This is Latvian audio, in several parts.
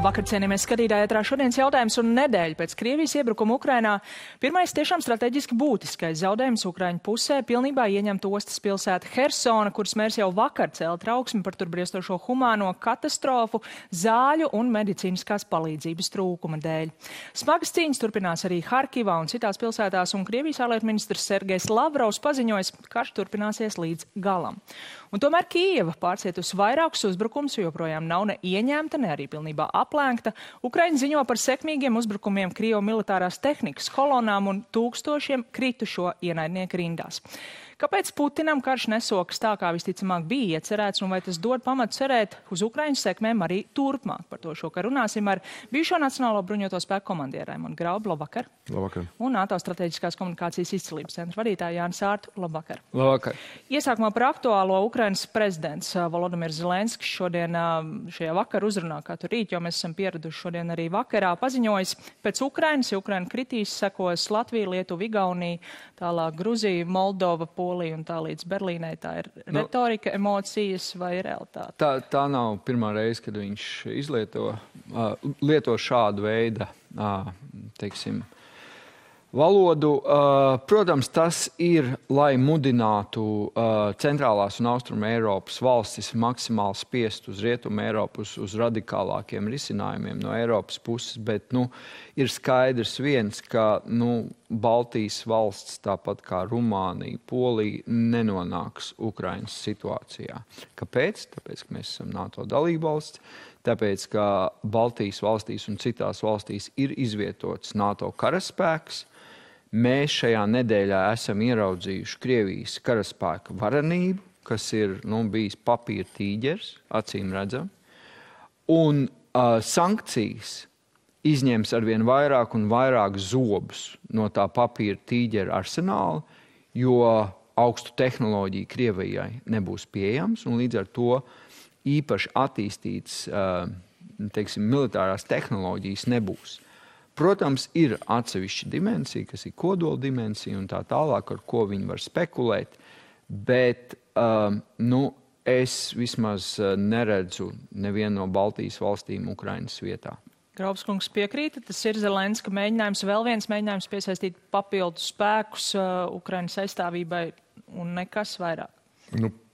Labvakar, cienījamies skatītāji, ētrā šodienas jautājums un nedēļa pēc Krievijas iebrukuma Ukrainā. Pirmais tiešām strateģiski būtiskais zaudējums Ukraiņu pusē pilnībā ieņemt ostas pilsēta Hersona, kuras mērs jau vakar cēla trauksmi par tur briestošo humāno katastrofu, zāļu un medicīniskās palīdzības trūkuma dēļ. Smagas cīņas turpinās arī Harkivā un citās pilsētās, un Krievijas ārlietu ministrs Sergejs Lavrovs paziņoja, ka karš turpināsies līdz galam. Un tomēr Kijeva pārcietusi vairākus uzbrukumus, joprojām nav ne ieņemta, ne arī pilnībā aplēkta. Ukraiņa ziņo par sekmīgiem uzbrukumiem Krievu militārās tehnikas kolonām un tūkstošiem kritušo ienaidnieku rindās. Kāpēc Putinam karš nesokas tā, kā visticamāk bija iecerēts, un vai tas dod pamatu cerēt uz Ukraiņas sekmēm arī turpmāk? Par to šokar runāsim ar bijušo Nacionālo bruņoto spēku komandieru Raimondu Graubu. Labvakar. Labvakar. Un NATO strateģiskās komunikācijas izcilības centra vadītāju Jāni Sārtu. Labvakar. Labvakar. Iesākumā par aktuālo Ukrainas prezidents Volodimirs Zelenskis šodien šajā vakar uzrunā, kā tur rīt, jo mēs esam pieraduši šodien arī vakarā, paziņojis, pēc Ukrainas, ja Ukraina kritīs, sekos Latvija, Lietuva, Igaunija, tālāk Gruzija, Moldova, Polija un tā līdz Berlīnai. Tā ir retorika, emocijas vai realitāte? Tā nav pirmā reize, kad viņš lieto šādu veidu, teiksim, valodu. Protams, tas ir, lai mudinātu centrālās un austrumu Eiropas valstis maksimāli spiest uz rietumu Eiropu, uz radikālākiem risinājumiem no Eiropas puses, bet ir skaidrs viens, ka Baltijas valsts, tāpat kā Rumānija, Polija, nenonāks Ukrainas situācijā. Kāpēc? Tāpēc, ka mēs esam NATO dalībvalsts, tāpēc, ka Baltijas valstīs un citās valstīs ir izvietots NATO karaspēks. Mēs šajā nedēļā esam ieraudzījuši Krievijas karaspēka varenību, kas ir bijis papīra tīģers, acīm redzam. Un sankcijas izņems arvien vairāk un vairāk zobus no tā papīra tīģera arsenāla, jo augstu tehnoloģiju Krievijai nebūs pieejams, un līdz ar to īpaši attīstītas, teiksim, militārās tehnoloģijas nebūs. Protams, ir atsevišķa dimensija, kas ir kodola dimensija un tā tālāk, ar ko viņi var spekulēt, bet es vismaz neredzu nevienu no Baltijas valstīm Ukrainas vietā. Graubs kungs piekrīta, tas ir Zelenska mēģinājums, vēl viens mēģinājums piesaistīt papildu spēkus Ukrainas aizstāvībai un nekas vairāk.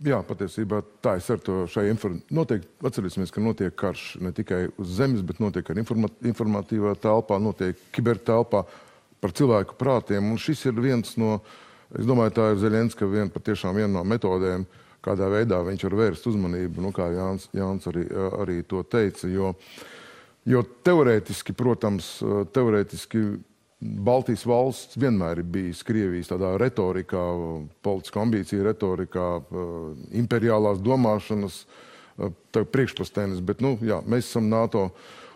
Jā, patiesībā tā es ar to šai noteikti atcerēsimies, ka notiek karš ne tikai uz zemes, bet notiek arī informatīvā telpā, notiek kibertelpā par cilvēku prātiem. Un šis ir viens no, es domāju, tā ir Zelenska patiešām viena no metodēm, kādā veidā viņš var vērst uzmanību, kā Jānis arī to teica, jo teorētiski, protams, Baltijas valsts vienmēr ir bijis Krievijas tādā retorikā, politiska ambīcija retorikā, imperiālās domāšanas priekšpastēnes, bet, mēs esam NATO,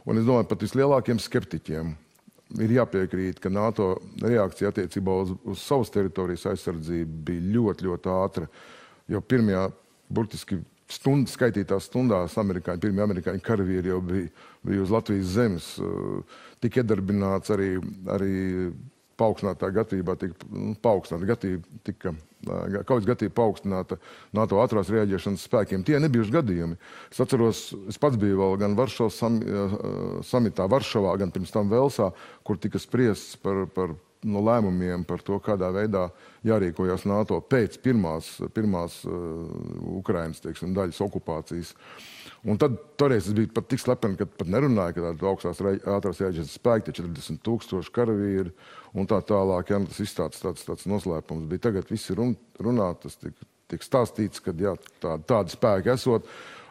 un es domāju, pat vislielākiem skeptiķiem ir jāpiekrīt, ka NATO reakcija attiecībā uz savas teritorijas aizsardzību bija ļoti, ļoti ātra, jo pirmajā, burtiski skaitītās stundās pirmie amerikāņu karavīri jau bija uz Latvijas zemes, tika iedarbināts arī paaugstinātā gatavībā, kaujas gatavība paaugstināta NATO ātrās reaģēšanas spēkiem. Tie nebijuši gadījumi. Es atceros, es pats biju vēl gan Varšavas samitā Varšavā, gan pirms tam Velsā, kur tika spriests par lēmumiem par to, kādā veidā jārīkojas NATO pēc pirmās Ukrainas, teiksim, daļas okupācijas. Un tad toreiz es biju pat tik slepeni, ka pat nerunāju, ka tāda augstās ātrās reaģēšanas spēki, 40 000 karavīri un tā tālāk. Tas izstāsts tāds noslēpums bija. Tagad visi runā, tas tiek stāstīts, ka tādi spēki esot.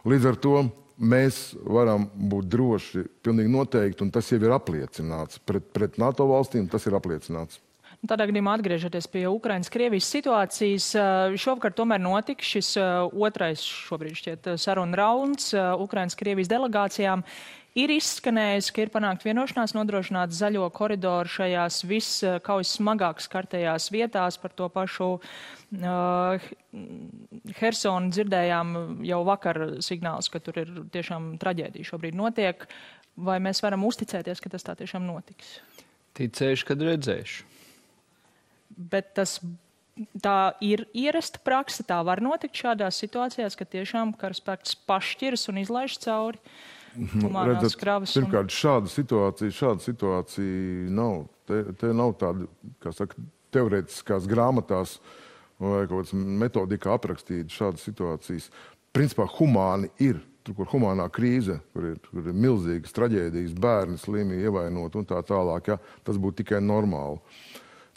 Līdz ar to mēs varam būt droši, pilnīgi noteikti, un tas jau ir apliecināts. Pret NATO valstīm tas ir apliecināts. Tādā gadījumā atgriežoties pie Ukrainas-Krievijas situācijas, šovakar tomēr notika šis otrais šobrīd šķiet saruna rauns Ukrainas-Krievijas delegācijām. Ir izskanējis, ka ir panākt vienošanās nodrošināt zaļo koridoru šajās kaujas smagāk skartajās vietās. Par to pašu Hersonu dzirdējām jau vakar signāls, ka tur ir tiešām traģēdija šobrīd notiek. Vai mēs varam uzticēties, ka tas tā tiešām notiks? Ticēšu, kad redzēšu. Bet tā ir ierasta prakse, tā var notikt šādās situācijās, ka tiešām karaspēks pašķiras un izlaiž cauri humanās kravas. Pirmkārt, šāda situācija nav. Te nav tāda, kā saka, teorētiskās grāmatās vai kaut kādas metodikā aprakstīta šādas situācijas. Principā humāni ir. Tur, kur humānā krīze, kur ir milzīgas traģēdijas, bērni slimi, ievainot un tā tālāk, ja, tas būtu tikai normāli.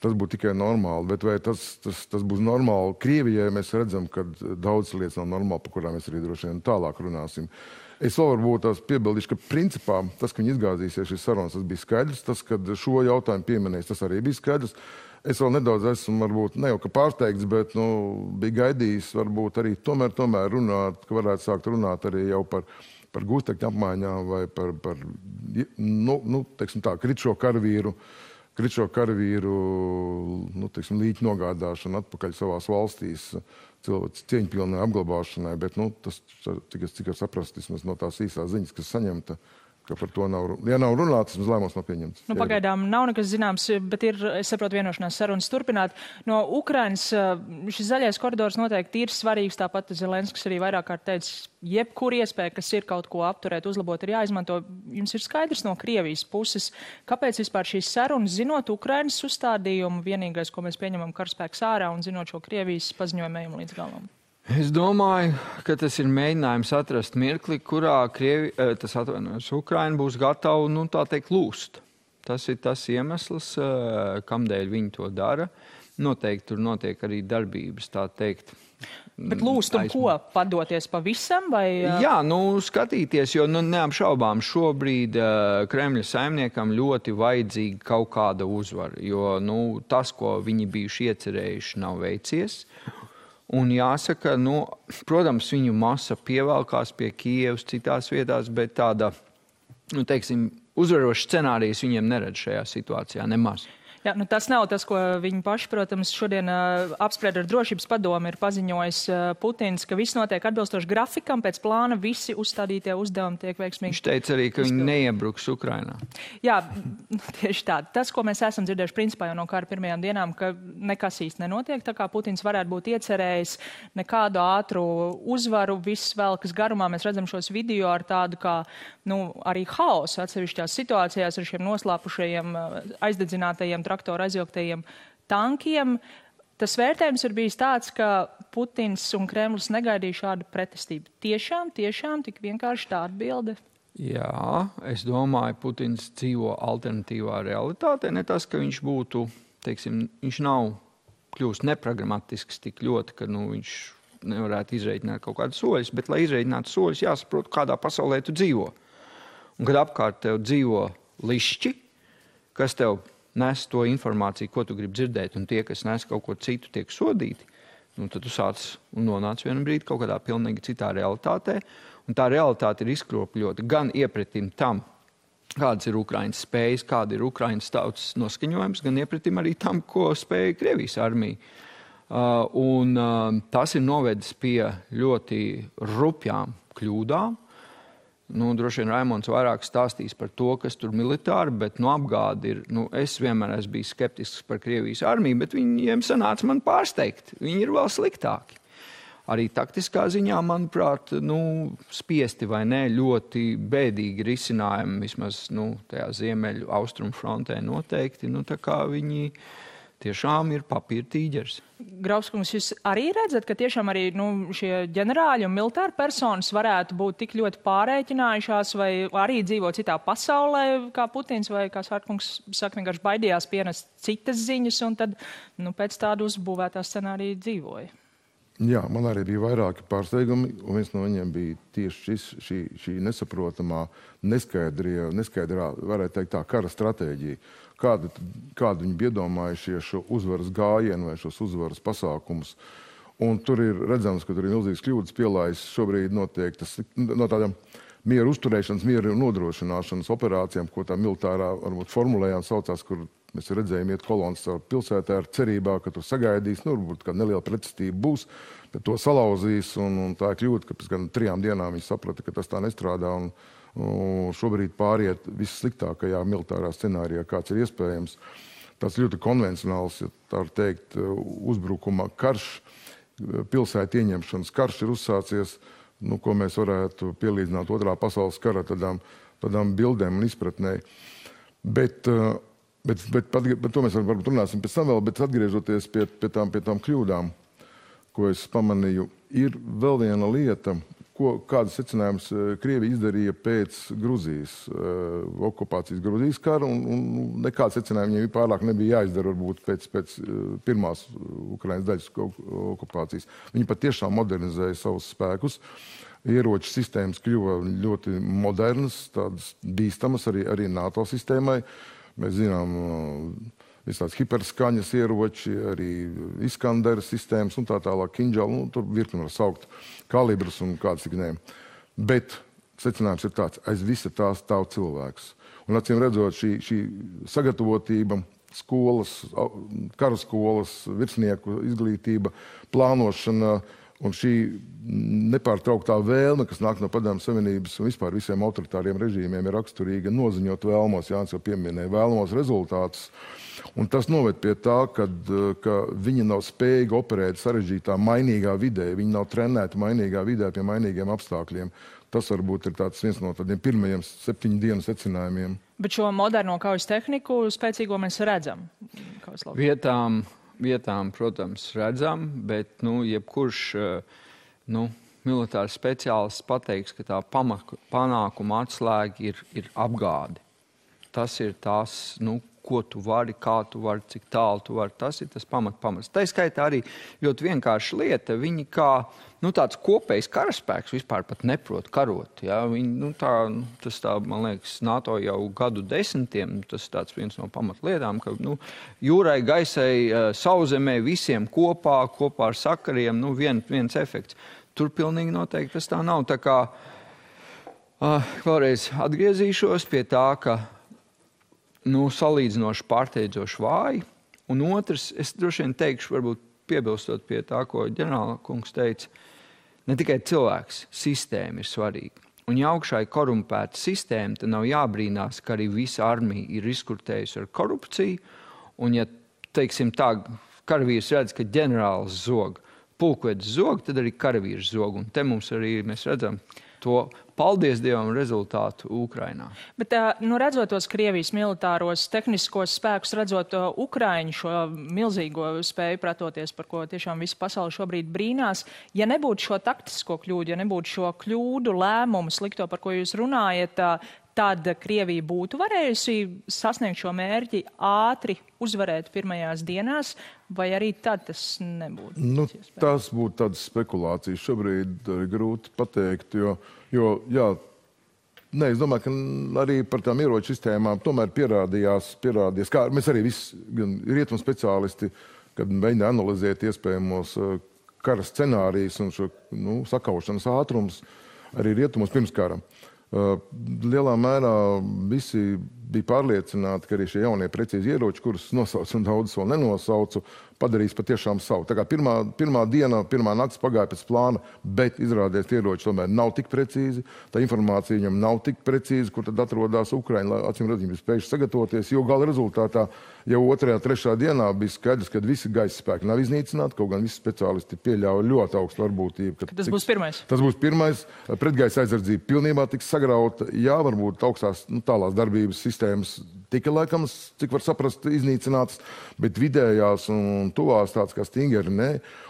Bet vai tas būs normāli Krievijai, mēs redzam, ka daudz lietas nav normāli, par kurām mēs arī droši vien tālāk runāsim. Es vēl varbūt tās piebildīšu, ka principā tas, ka viņi izgāzīsies šīs sarunas, tas bija skaidrs. Tas, kad šo jautājumu pieminēs, tas arī bija skaidrs. Es vēl nedaudz esmu, varbūt, ne jau ka pārsteigts, bet bija gaidījis varbūt arī tomēr runāt, ka varētu sākt runāt arī jau par gūstekņu apmaiņām vai par teiksim tā, kritšo karavīru, teiksim, līķu nogādāšanu atpakaļ savās valstīs, cilvēks cieņpilnai apglabāšanai, bet, tas, cik es saprastu, vismaz no tās īsās ziņas, kas saņemta, ka par to nav, ja nav runāts, tas lēmums nav pieņemts. Pagaidām nav nekas zināms, bet ir, es saprotu, vienošanās sarunas turpināt. No Ukrainas šis zaļais koridors noteikti ir svarīgs, tāpat Zelenskis arī vairāk kārt teica, jebkur iespēja, kas ir kaut ko apturēt, uzlabot, ir jāizmanto. Jums ir skaidrs no Krievijas puses, kāpēc vispār šīs sarunas, zinot Ukrainas uzstādījumu, vienīgais, ko mēs pieņemam karaspēks ārā un zinot šo Krievijas paziņojumu līdz galam? Es domāju, ka tas ir mēģinājums atrast mirkli, kurā Ukraina būs gatava, tā teikt, lūst. Tas ir tas iemesls, kamdēļ viņi to dara. Noteikti tur notiek arī darbības, tā teikt. Bet lūst un ko? Padoties pavisam? Vai... Jā, skatīties, jo neapšaubām šobrīd Kremļa saimniekam ļoti vajadzīga kaut kāda uzvara, jo tas, ko viņi bijuši iecerējuši, nav veicies. Un jāsaka, protams, viņu masa pievelkās pie Kijevas citās vietās, bet tāda, teiksim, uzvaroša scenārijas viņiem neredz šajā situācijā nemaz. Jā, tas nav tas, ko viņi paši, protams, šodien apspried ar drošības padomu, ir paziņojis Putins, ka viss notiek atbilstoši grafikam, pēc plāna visi uzstādītie uzdevumi tiek veiksmīgi. Viņš teica arī, ka viņi neiebruks Ukrainā. Jā, tieši tā. Tas, ko mēs esam dzirdējuši principā jau no kara pirmajām dienām, ka nekas īsti nenotiek, tā kā Putins varētu būt iecerējis nekādu ātru uzvaru, viss velkas garumā. Mēs redzam šos video ar tādu kā, arī haosu atsevišķās situācijās ar šiem noslāpušajiem, aizdedzinātajiem traktoru aizvilktajiem tankiem. Tas vērtējums ir bijis tāds, ka Putins un Kremlis negaidīja šādu pretestību. Tiešām tik vienkārši tā atbilde? Jā, es domāju, Putins dzīvo alternatīvā realitātē. Ne tas, ka viņš būtu, teiksim, viņš nav kļūst nepragmatisks tik ļoti, ka viņš nevarētu izreikināt kaut kādus soļus, bet, lai izreikinātu soļus, jāsaprot, kādā pasaulē tu dzīvo. Un kad apkārt tev dzīvo lišķi, kas tev nes to informāciju, ko tu gribi dzirdēt, un tie, kas nes kaut ko citu, tiek sodīti, tad tu sāc un nonāc vienu brīdi kaut kādā pilnīgi citā realitātē. Un tā realitāte ir izkropļota gan iepretim tam, kādas ir Ukrainas spējas, kāda ir Ukrainas tautas noskaņojums, gan iepretim arī tam, ko spēja Krievijas armija. Tas ir novedis pie ļoti rupjām kļūdām. Droši vien Raimonds vairāk stāstīs par to, kas tur militāri, bet apgādi ir, es vienmēr esmu bijis skeptisks par Krievijas armiju, bet viņiem sanāca man pārsteigt. Viņi ir vēl sliktāki. Arī taktiskā ziņā, manuprāt, spiesti vai ne, ļoti bēdīgi risinājumi, vismaz tajā ziemeļu austrumu frontē noteikti, tā kā viņi tiešām ir papīra tīģeris. Grauskungs, jūs arī redzat, ka tiešām arī šie ģenerāļi un militāri personas varētu būt tik ļoti pārēķinājušās vai arī dzīvot citā pasaulē, kā Putins vai, kā Svārkungs saka, vienkārši baidījās pienest citas ziņas un tad pēc tādu uzbūvētā scenārija dzīvoja. Jā, man arī bija vairāki pārsteigumi, un viens no viņiem bija tieši šī nesaprotamā, neskaidrā, varētu teikt tā, kara stratēģija. Kādu viņi iedomājušie šo uzvaras gājienu vai šos uzvaras pasākumus. Un tur ir redzams, ka tur ir milzīgas kļūdas pielājas. Šobrīd notiek tas no tādām mieru uzturēšanas, mieru nodrošināšanas operācijām, ko tā militārā varbūt formulējām saucās, kur mēs redzējām iet kolonas caur pilsētā ar cerībā, ka tur sagaidīs, varbūt kāda neliela pretestība būs, tad to salauzīs, un tā ir kļūda, ka pēc 3 dienām viņi saprata, ka tas tā nestrādā, un šobrīd pāriet vissliktākajā militārā scenārijā, kāds ir iespējams. Tas ļoti konvencionāls, ja tā var teikt, uzbrukuma karš, pilsētu ieņemšanas karš ir uzsācies. ko mēs varētu pielīdzināt otrā pasaules kara tādām bildēm un izpratnē. Bet to mēs varbūt runāsim pēc tam vēl, bet atgriežoties pie tām kļūdām, ko es pamanīju, ir vēl viena lieta, kādas secinājumus Krievija izdarīja pēc Gruzijas okupācijas Gruzijas kara, un nekāds secinājumi viņiem pārāk nebija jāizdara varbūt pēc pirmās Ukrainas daļas okupācijas. Viņi patiešām modernizēja savus spēkus. Ieroču sistēmas kļuva ļoti modernas, tādas bīstamas arī NATO sistēmai. Mēs zinām visāds hiperskaņas ieroči, arī Iskandera sistēmas un tā tālāk, Kinžali, tur virkni var saukt kalibrus un kāds tik ne. Bet secinājums ir tāds, aiz visa tā stāv cilvēks. Un acīm redzot, šī sagatavotība, skolas, karaskolas, virsnieku izglītība, plānošana un šī nepārtrauktā vēlme, kas nāk no Padomju Savienības un vispār visiem autoritāriem režīmiem, ir raksturīga noziņot vēlamos, Jānis jau pieminēja, vēlamos rezultātus. Un tas noved pie tā, ka viņi nav spējīgi operēt sarežģītā, mainīgā vidē. Viņi nav trenēti mainīgā vidē pie mainīgiem apstākļiem. Tas varbūt ir viens no tādiem pirmajiem 7 dienu secinājumiem. Bet šo moderno kaujas tehniku spēcīgo mēs redzam. Vietām, protams, redzam, bet jebkurš militārs speciālists pateiks, ka tā panākuma atslēga ir apgāde. Tas ir tās, ko tu vari, kā tu vari, cik tālu tu vari. Tas ir tas pamats. Tā skaitā arī ļoti vienkārša lieta. Viņi kā tāds kopējs karaspēks vispār pat neprot karot. Ja? Viņi, tas tā, man liekas, NATO jau gadu desmitiem, tas ir tāds viens no pamatlietām, ka jūrai, gaisai, sauszemē visiem kopā ar sakariem, viens efekts. Tur pilnīgi noteikti tas tā nav. Tā kā vēlreiz atgriezīšos pie tā, ka salīdzinoši pārsteidzoši vāji. Un otrs, es droši vien teikšu, varbūt piebilstot pie tā, ko ģenerāla kungs teica, ne tikai cilvēks, sistēma ir svarīga. Un ja augšā ir korumpēta sistēma, tad nav jābrīnās, ka arī visa armija ir izkurtējusi ar korupciju. Un ja, teiksim tā, karavīrs redz, ka ģenerālis zog, pulkvedis zog, tad arī karavīrs zog. Un te mums arī mēs redzam to, paldies Dievam, rezultātu Ukrainā. Bet, redzot tos Krievijas militāros tehniskos spēkus, redzot Ukraiņu šo milzīgo spēju pretoties, par ko tiešām visa pasaule šobrīd brīnās, ja nebūtu šo taktisko kļūdu, ja nebūtu šo kļūdu lēmumu slikto, par ko jūs runājat, tad Krievija būtu varējusi sasniegt šo mērķi ātri uzvarēt pirmajās dienās, vai arī tad tas nebūtu? Tas būtu tādas spekulācijas. Šobrīd grūti pateikt, jo es domāju, ka arī par tām ieroču sistēmām tomēr pierādījās, kā mēs arī visi, gan rietumu speciālisti, kad mēģina analizēt iespējamos kara scenārijus un šo sakaušanas ātrums arī rietumos pirms kara. Lielā mērā visi bija pārliecināti, ka arī šie jaunie precīzi ieroči, kurus nosaucu un daudz vēl nenosaucu, padarīs patiešām savu. Tā kā pirmā diena, pirmā nakts pagāja pēc plāna, bet izrādījās tie ieroči tomēr nav tik precīzi, tā informācija viņam nav tik precīzi, kur tad atrodas Ukraina, lai acīm redzot, viņi bija spējuši sagatavoties, jo gala rezultātā jau 2. 3. dienā bija skaidrs, ka visi gaisa spēki nav iznīcināti, kaut gan visi speciālisti pieļauja ļoti augstu varbūtību. Tas būs pirmais. Tas būs pirmais. Pretgaisa aizsardzība pilnībā tiks sagrauta. Jā, varbūt augstās tālās darbības sistēmas tika laikams, cik var saprast, iznīcināts, bet vidējās un tuvās tāds kā Stingeri, nē.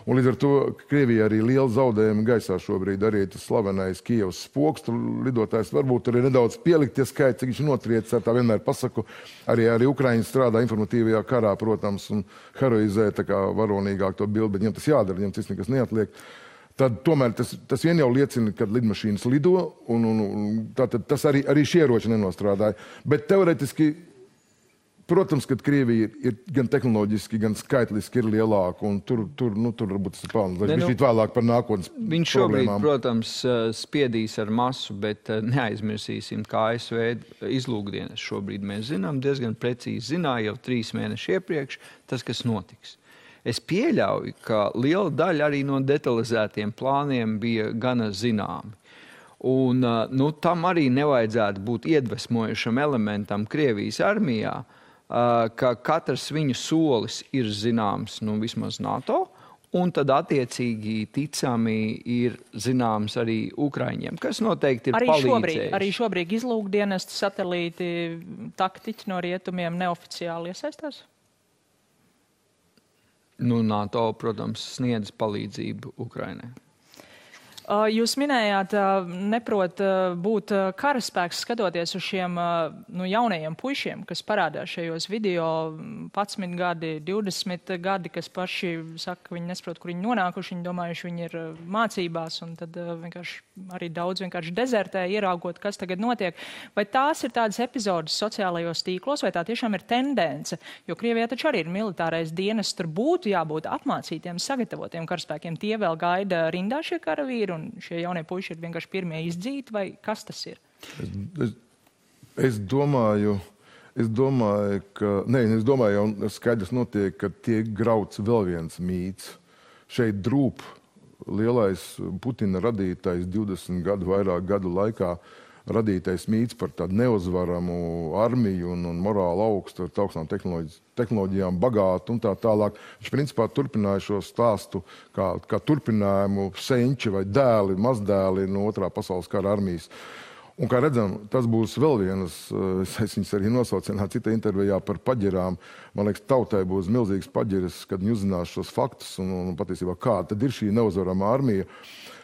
Un līdz ar to Krievija arī liela zaudējuma gaisā šobrīd arī tas slavenais Kijevas spoks, tur lidotājs varbūt arī nedaudz pielikt tie skaiti, cik viņš notriecis, ar tā vienmēr pasaku. Arī Ukraiņi strādā informatīvajā karā, protams, un heroizē tā kā varonīgāk to bildi, bet viņam tas jādara, viņam tas nekas neatliek. Tad tomēr tas vien jau liecina, kad lidmašīnas lido, un tātad tas arī šie ieroči nenostrādāja. Bet teoretiski, protams, ka Krievija ir gan tehnoloģiski, gan skaitliski ir lielāka, un tur varbūt tas ir pelns. Viņš vēlāk par nākotnes problēmām. Viņš šobrīd, protams, spiedīs ar masu, bet neaizmirsīsim, kā ASV izlūkdienas šobrīd mēs zinām, diezgan precīzi zināja jau 3 mēneši iepriekš tas, kas notiks. Es pieļauju, ka liela daļa arī no detalizētiem plāniem bija gana zināmi. Un tam arī nevajadzētu būt iedvesmojušam elementam Krievijas armijā, ka katrs viņu solis ir zināms, vismaz NATO, un tad attiecīgi ticami ir zināms arī Ukraiņiem, kas noteikti ir palīdzējis. Arī šobrīd izlūkdienestu satelīti, taktiķi no rietumiem neoficiāli iesaistās? Nu, NATO, protams, sniedz palīdzību Ukrainai. Jūs minējāt, neprot būt karaspēks skatoties uz šiem jaunajiem puišiem, kas parādās šajos video 11 gadi, 20 gadi, kas paši saka, ka viņi nesaprot, kur viņi nonākuši, viņi domājuši, viņi ir mācībās, un tad vienkārši arī daudz vienkārši dezertē, ieraugot, kas tagad notiek. Vai tās ir tādas epizodes sociālajos tīklos, vai tā tiešām ir tendence? Jo Krievijā taču arī ir militārais dienests, tur būtu jābūt apmācītiem, sagatavotiem karaspēkiem. Tie vēl gaida rindā šie karavīri, un šie jaunie puiši ir vienkārši pirmie izdzīti, vai kas tas ir? Es domāju, jau skaidrs notiek, ka tiek grauts vēl viens mīts. Šeit drūp lielais Putina radītais 20 gadu, vairāk gadu laikā radītais mīts par tādu neuzvaramu armiju un morāli augstu, ar augstām tehnoloģijām bagātu un tā tālāk. Viņš principā turpināja šo stāstu kā turpinājumu senči vai dēli, mazdēli no otrā pasaules kara armijas. Un, kā redzam, tas būs vēl vienas, es viņas arī nosaucināju citā intervijā par paģirām. Man liekas, tautai būs milzīgs paģiris, kad viņi uzzinās šos faktus un patiesībā kāda tad ir šī neuzvarama armija.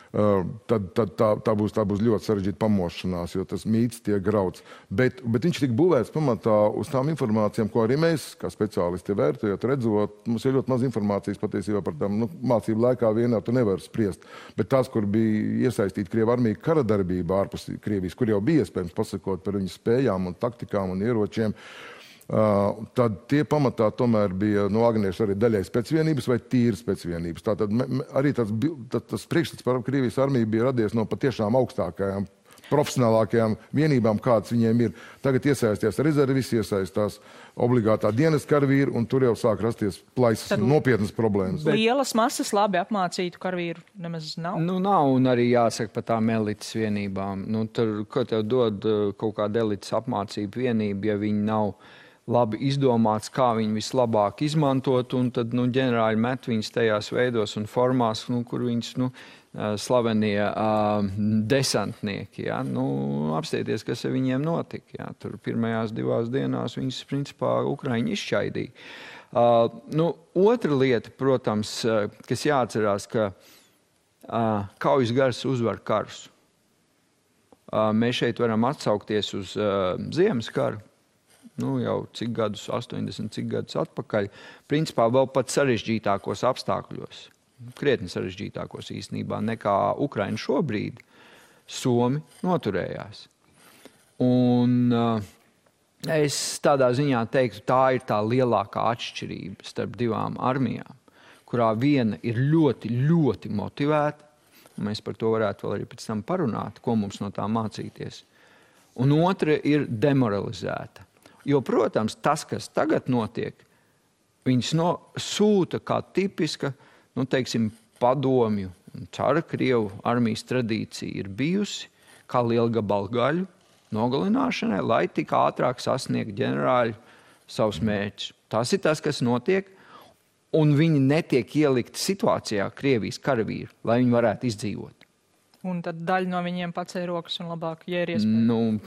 Tad tā būs ļoti sarežģīta pamošanās, jo tas mīts tiek grauts. Bet viņš tika būvēts pamatā uz tām informācijām, ko arī mēs, kā speciālisti vērtējot, redzot. Mums ir ļoti maz informācijas patiesībā par tām mācību laikā vienā tu nevar spriest. Bet tās, kur bija iesaistīta Krievu armija kara darbībā ārpus Krievijas, kur jau bija iespējams pasakot par viņu spējām un taktikām un ieročiem, tad tie pamatā tomēr bija no agniešu arī daļai specvienības vai tīras specvienības. Tātad arī tas priekšstats par Krievijas armiju bija radies no patiešām augstākajām, profesionālākajām vienībām, kādas viņiem ir. Tagad iesaistās rezervis, iesaistās obligātā dienas karavīri, un tur jau sāk rasties plaisas nopietnas problēmas. Lielas masas labi apmācītu karavīru nemaz nav? Nu, nav, un arī jāsaka par tām elites vienībām. Nu, tur, ko tev dod kaut kāda elites apmācība vienība, ja viņi nav labi izdomāts, kā viņi vislabāk izmantot, un tad ģenerāļi met viņus tajās veidos un formās, kur viņus slavenie desantnieki. Ja? Apstieties, kas ar viņiem notika. Ja? Tur pirmajās 2 dienās viņus, principā, Ukraiņi izšķaidīja. Otra lieta, protams, kas jāatcerās, ka kaujas gars uzvar karus. Mēs šeit varam atsaukties uz Ziemas karu. Jau cik gadus, 80 cik gadus atpakaļ, principā vēl pat sarežģītākos apstākļos, krietni sarežģītākos īstenībā nekā Ukraina šobrīd, Somi noturējās. Un es tādā ziņā teiktu, tā ir tā lielākā atšķirība starp 2 armijām, kurā viena ir ļoti, ļoti motivēta, un mēs par to varētu vēl arī pēc tam parunāt, ko mums no tā mācīties, un otra ir demoralizēta. Jo, protams, tas, kas tagad notiek, viņas sūta kā tipiska, padomju un cara Krievu armijas tradīcija ir bijusi kā lielgabalu gaļu nogalināšanai, lai tik ātrāk sasniegt ģenerāļi savus mērķus. Tas ir tas, kas notiek, un viņi netiek ielikti situācijā Krievijas karavīri, lai viņi varētu izdzīvot. Un tad daļa no viņiem pacēla rokas un labāk, ja ir iespēja.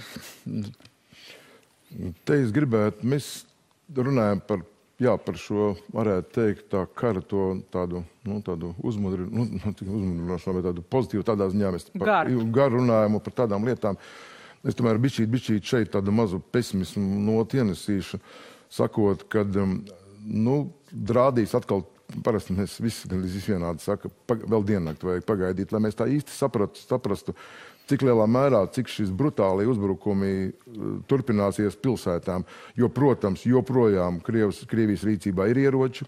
Te es gribētu, mēs runājam par šo, varētu teikt, tā kara tādu uzmundrināšanu, vai tādu pozitīvu tādā ziņā. Mēs garu runājam par tādām lietām. Es tomēr bišķīt šeit tādu mazu pesimismu noti ienesīšu, sakot, kad, drādīs atkal, parasti mēs visi vienādi saka, vēl diennakti vajag pagaidīt, lai mēs tā īsti saprastu, cik lielā mērā, cik šis brutālie uzbrukumi turpināsies pilsētām. Jo, protams, joprojām Krievijas rīcībā ir ieroči,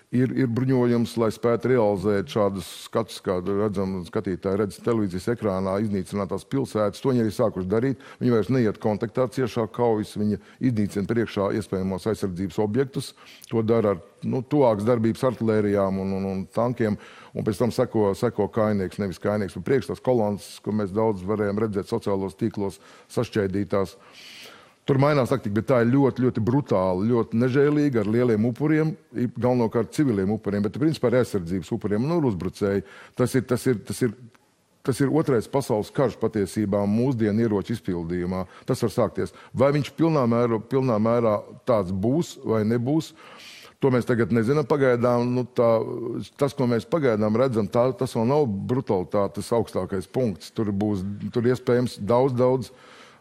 ir bruņojums, lai spētu realizēt šādus skatus, kā redzam, skatītāji redz televīzijas ekrānā iznīcinātās pilsētas. To viņi arī sākuši darīt. Viņi vairs neiet kontaktā ciešā kaujas, viņi iznīcina priekšā iespējamos aizsardzības objektus. To dara ar tuvākas darbības artilērijām un tankiem. Un pēc tam seko kainieks, nevis kainieks, bet priekš tās kolonas, ko mēs daudz varējām redzēt sociālos tīklos sašķaidītās. Tur mainās taktika, bet tā ir ļoti, ļoti brutāla, ļoti nežēlīga, ar lieliem upuriem, galvenokārt civiliem upuriem, bet principā ar aizsardzības upuriem un uzbrucēji. Tas ir otrais pasaules karš patiesībā mūsdienu ieroču izpildījumā. Tas var sākties. Vai viņš pilnā mērā tāds būs vai nebūs, to mēs tagad nezinām pagaidām. Tas, ko mēs pagaidām redzam, tas vēl nav brutalitātes augstākais punkts. Tur iespējams daudz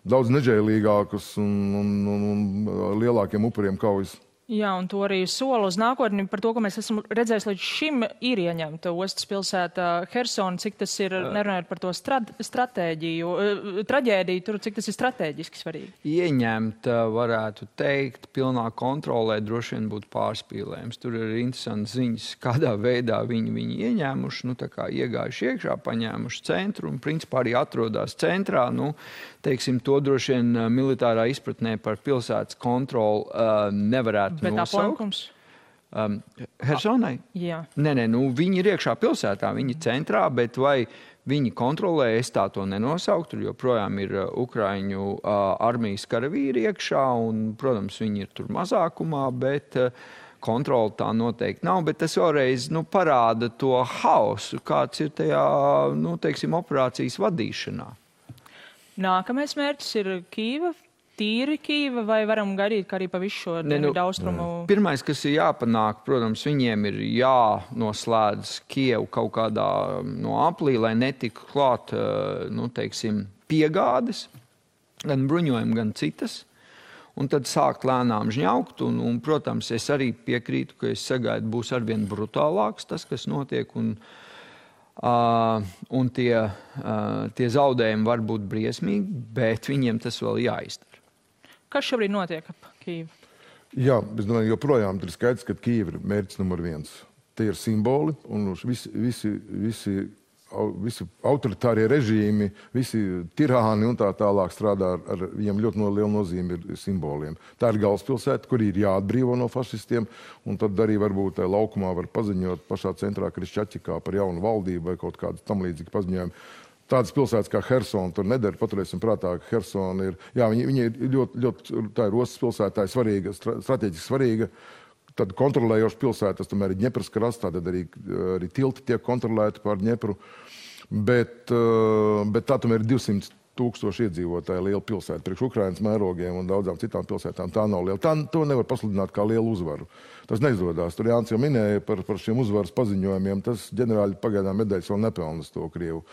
nežēlīgākus un lielākiem upuriem kaujas. Jā, un to arī sola uz nākotni par to, ko mēs esam redzējuši līdz šim ir ieņemta ostas pilsēta Hersona, cik tas ir, nerunājot par to traģēdiju, tur, cik tas ir strateģiski svarīgi. Ieņemt, varētu teikt, pilnā kontrolē droši vien būtu pārspīlējums. Tur ir interesanti ziņas, kādā veidā viņi ieņēmuši, tā kā iegājuši iekšā, paņēmuši centru un principā arī atrodās centrā. Teiksim, to droši vien militārā izpratnē par pilsētas kontroli nevarētu bet nosaukt. Hersonai? Jā. Nē, viņi ir iekšā pilsētā, viņi ir centrā, bet vai viņi kontrolē, es tā to nenosauktu, tur joprojām ir Ukraiņu armijas karavīri iekšā, un, protams, viņi ir tur mazākumā, bet kontrola tā noteikti nav, bet tas vēlreiz parāda to hausu, kāds ir tajā, teiksim, operācijas vadīšanā. Nākamais mērķis ir Kīva, tīri Kīva, vai varam gaidīt, ka arī pa visu šo dienvidu austrumu? Pirmais, kas ir jāpanāk, protams, viņiem ir jānoslēdz Kievu kaut kādā aplī, lai netiktu klāt, teiksim, piegādes, gan bruņojumi, gan citas. Un tad sākt lēnām žņaukt, un, protams, es arī piekrītu, ka es sagaidu būs arvien brutālāks tas, kas notiek, un tie zaudējumi var būt briesmīgi, bet viņiem tas vēl jāizdara. Kas šobrīd notiek ap Kīvu? Jā, es domāju, joprojām ir skaidrs, ka Kīva ir mērķis numur 1. Tie ir simboli, un visi autoritārie režīmi, visi tirāni un tā tālāk strādā ar viņiem ļoti lielu nozīmi ir simboliem. Tā ir galvaspilsēta, kur ir jāatbrīvo no fašistiem, un tad arī varbūt laukumā var paziņot pašā centrā Krišķaķikā par jaunu valdību vai kaut kādu tam līdzīgi paziņojumu. Tādas pilsētas kā Hersona tur nedara. Paturēsim prātā, ka Hersona ir, viņa ir ļoti, tā ir ostas pilsēta, tā ir svarīga, strateģiski svarīga. Tad kontrolējoša pilsēta, tas tomēr ir Ņepras krasts, tad arī tilti tiek kontrolēti pār Ņepru. Bet tā tomēr ir 200,000 iedzīvotāju liela pilsēta. Priekš Ukrainas mērogiem un daudzām citām pilsētām tā nav liela. To nevar pasludināt kā lielu uzvaru. Tas neizdodas. Tur Jānis jau minēja par šiem uzvaras paziņojumiem. Tas ģenerāļi pagaidām medaļas vēl nepelnas to Krievu.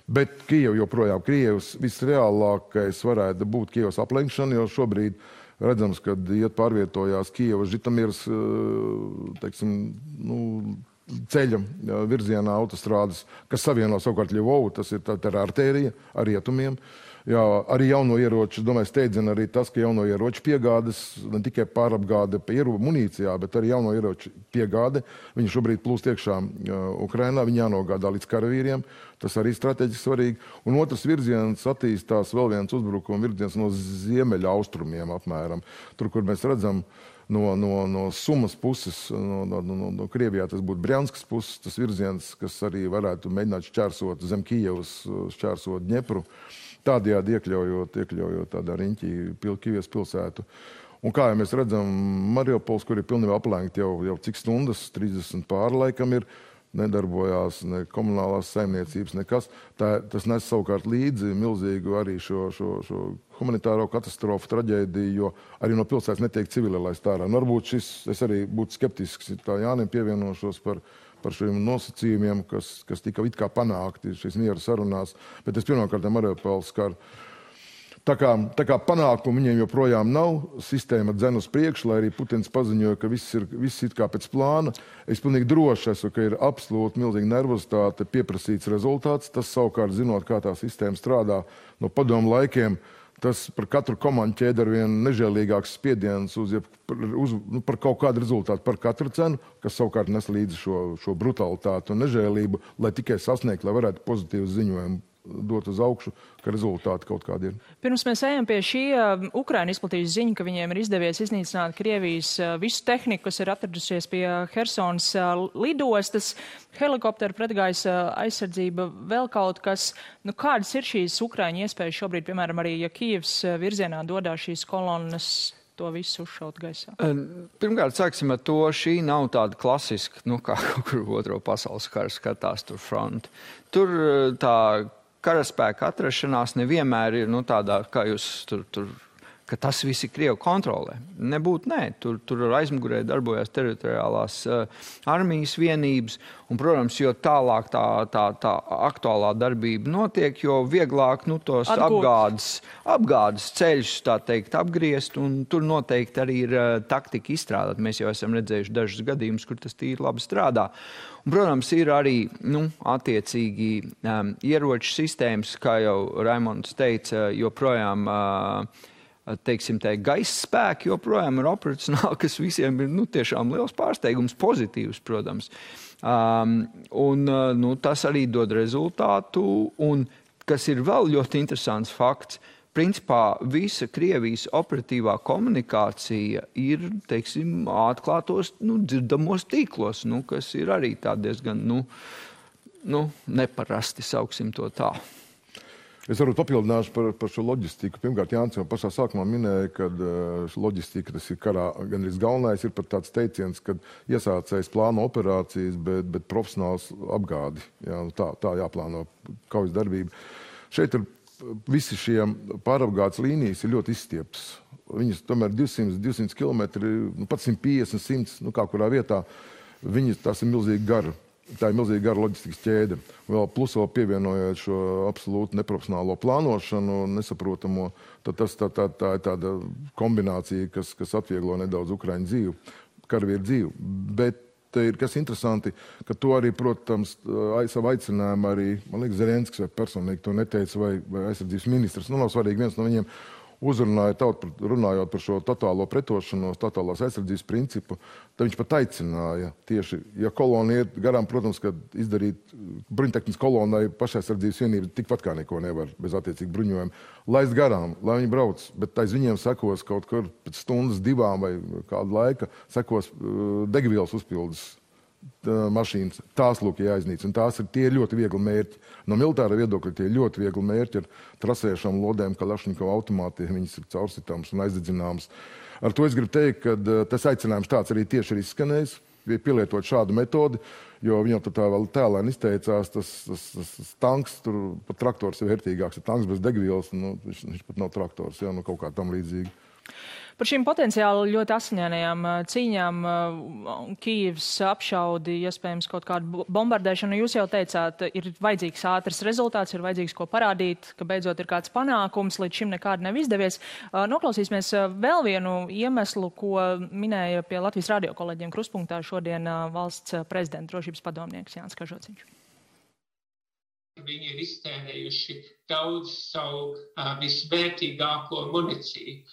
Bet Kijeva joprojām, Krievs visreālākais varētu būt Kievas aplenkšana, jo šobrīd redzams, kad pārvietojās Kijevas Žitamiras, teiksim, ceļa virzienā autostrādes, kas savieno savukārt Ļuvovu, tas ir tā artērija ar rietumiem. Jā, arī jauno ieroču, domāju, steidzina arī tas, ka jauno ieroču piegādes, ne tikai pārapgāde pa munīcijā, bet arī jauno ieroču piegāde. Viņi šobrīd plūst iekšā Ukrainā, viņi jānogādā līdz karavīriem. Tas arī strateģiski svarīgi. Un otrs virziens attīstās vēl viens uzbrukuma virziens no ziemeļa austrumiem apmēram. Tur, kur mēs redzam no Sumas puses, no Krievijā tas būtu Brjanskas puses, tas virziens, kas arī varētu mēģināt šķērsot zem Kijevas, šķērsot Ņepru. Tādējādi iekļaujot tādā riņķī Kīvijas pilsētu. Un kā jau mēs redzam, Mariupols, kur ir pilnībā aplenkti jau cik stundas, 30 pāri laikam ir, nedarbojās ne komunālās saimniecības, nekas. Tas nes savukārt līdzi milzīgu arī šo humanitāro katastrofu, traģēdiju, jo arī no pilsētas netiek civili laist ārā. Varbūt es arī būtu skeptisks, tā Jānim pievienošos par šiem nosacījumiem, kas tika it kā panākti šīs miera sarunās, bet es pirmkārt Mariupols skar. Tā kā panākumu viņiem joprojām nav, sistēma dzen uz priekšu, lai arī Putins paziņoja, ka viss ir kā pēc plāna. Es pilnīgi droši esmu, ka ir absolūti milzīga nervozitāte, pieprasīts rezultāts. Tas savukārt, zinot, kā tā sistēma strādā no padomu laikiem, tas par katru komandu ķēdi ar vien nežēlīgāks spiediens par kaut kādu rezultātu, par katru cenu, kas savukārt nes līdzi šo brutalitātu un nežēlību, lai tikai sasniegt, lai varētu pozitīvu ziņojumu dot uz augšu, ka rezultāti kaut kādi ir. Pirms mēs ejam pie šī, Ukraina izplatīja ziņu, ka viņiem ir izdevies iznīcināt Krievijas visu tehniku, kas ir atradusies pie Hersonas lidostas, helikopteru, pretgaisa aizsardzība, vēl kaut kas. Nu, kādas ir šīs Ukraiņu iespējas šobrīd, piemēram, arī, ja Kijevs virzienā dodās šīs kolonnas, to visu uzšaut gaisā? Pirmkārt, sāksim ar to, šī nav tāda klasiska, kā kaut kur otro pasaules kara skatās tur fronti. Tur tā karaspēka atrašanās nevienmēr ir, tādā, kā jūs tur ka tas viss ir Krievu kontrolē. Nebūtu, nē. Tur aizmugurē darbojās teritoriālās armijas vienības, un, protams, jo tālāk tā aktuālā darbība notiek, jo vieglāk tos apgādes ceļus, tā teikt, apgriezt, un tur noteikti arī ir taktika izstrādāt. Mēs jau esam redzējuši dažus gadījumus, kur tas tīri labi strādā. Un, protams, ir arī attiecīgi ieroču sistēmas, kā jau Raimonds teica, joprojām teiksim, gaisa spēki joprojām ir operacionāli, kas visiem ir tiešām liels pārsteigums, pozitīvs, protams. Tas arī dod rezultātu, un kas ir vēl ļoti interesants fakts, principā visa Krievijas operatīvā komunikācija ir, teiksim, atklātos, dzirdamos tīklos, kas ir arī tā diezgan, neparasti, sauksim to tā. Es varbūt papildināšu par šo loģistiku. Pirmkārt, Jānis jau pašā sākumā minēja, ka loģistika, tas ir karā gandrīz galvenais, ir pat tāds teiciens, ka iesācējs plāno operācijas, bet profesionāls apgādi. Jā, tā jāplāno kaujas darbība. Šeit ir visi šie pārapgādes līnijas ir ļoti izstieptas. Viņas tomēr 200 km, pat 150, 100, kā kurā vietā, tās ir milzīgi gara. Tā ir milzīga gara loģistikas ķēde. Plus vēl pievienojot šo absolūti neprofesionālo plānošanu, nesaprotamo, tad tā ir tāda kombinācija, kas atvieglo nedaudz Ukraiņu dzīvi, karavīru dzīvi. Bet kas interesanti, ka to arī, protams, savu aicinājumu arī, man liekas, Zelenskis vai personīgi to neteica, vai aizsardzības ministrs, nav svarīgi, viens no viņiem uzrunāja runājot par šo totālo pretošanos, totālās aizsardzības principu, tad viņš pat aicināja tieši, ja kolona iet garām, protams, ka izdarīt bruņtehnikas kolonai pašaizsardzības vienība tikpat kā neko nevar bez attiecīgi bruņojuma. Laist garām, lai viņi brauc, bet aiz viņiem sekos kaut kur pēc stundas, 2 vai kādu laika, sekos degvielas uzpildes mašīnas. Tās lūk jāiznīcina. Tās ir ļoti viegli mērķi. No militāra viedokļa tie ļoti viegli mērķi ar trasējušām lodēm, Kalašņikova automātiem, viņas ir caursitāmas un aizdedzināmas. Ar to es gribu teikt, ka tas aicinājums tāds arī tieši ir izskanējis, pielietot šādu metodi, jo viņam tā vēl tēlēni izteicās, tas tanks, tur pat traktors ir vērtīgāks, ir tanks bez degvielas, viņš pat nav traktors, kaut kā tam līdzīgi. Par šīm potenciāli ļoti asiņainajām cīņām, Kijevs apšaudi, iespējams kaut kādu bombardēšanu, jūs jau teicāt, ir vajadzīgs ātrs rezultāts, ir vajadzīgs ko parādīt, ka beidzot ir kāds panākums, līdz šim nekādi nav izdevies. Noklausīsimies vēl vienu iemeslu, ko minēja pie Latvijas radio kolēģiem Kruspunktā šodien valsts prezidenta drošības padomnieks Jānis Kažociņš. Viņi ir iztērējuši daudz savu visvērtīgāko municiju,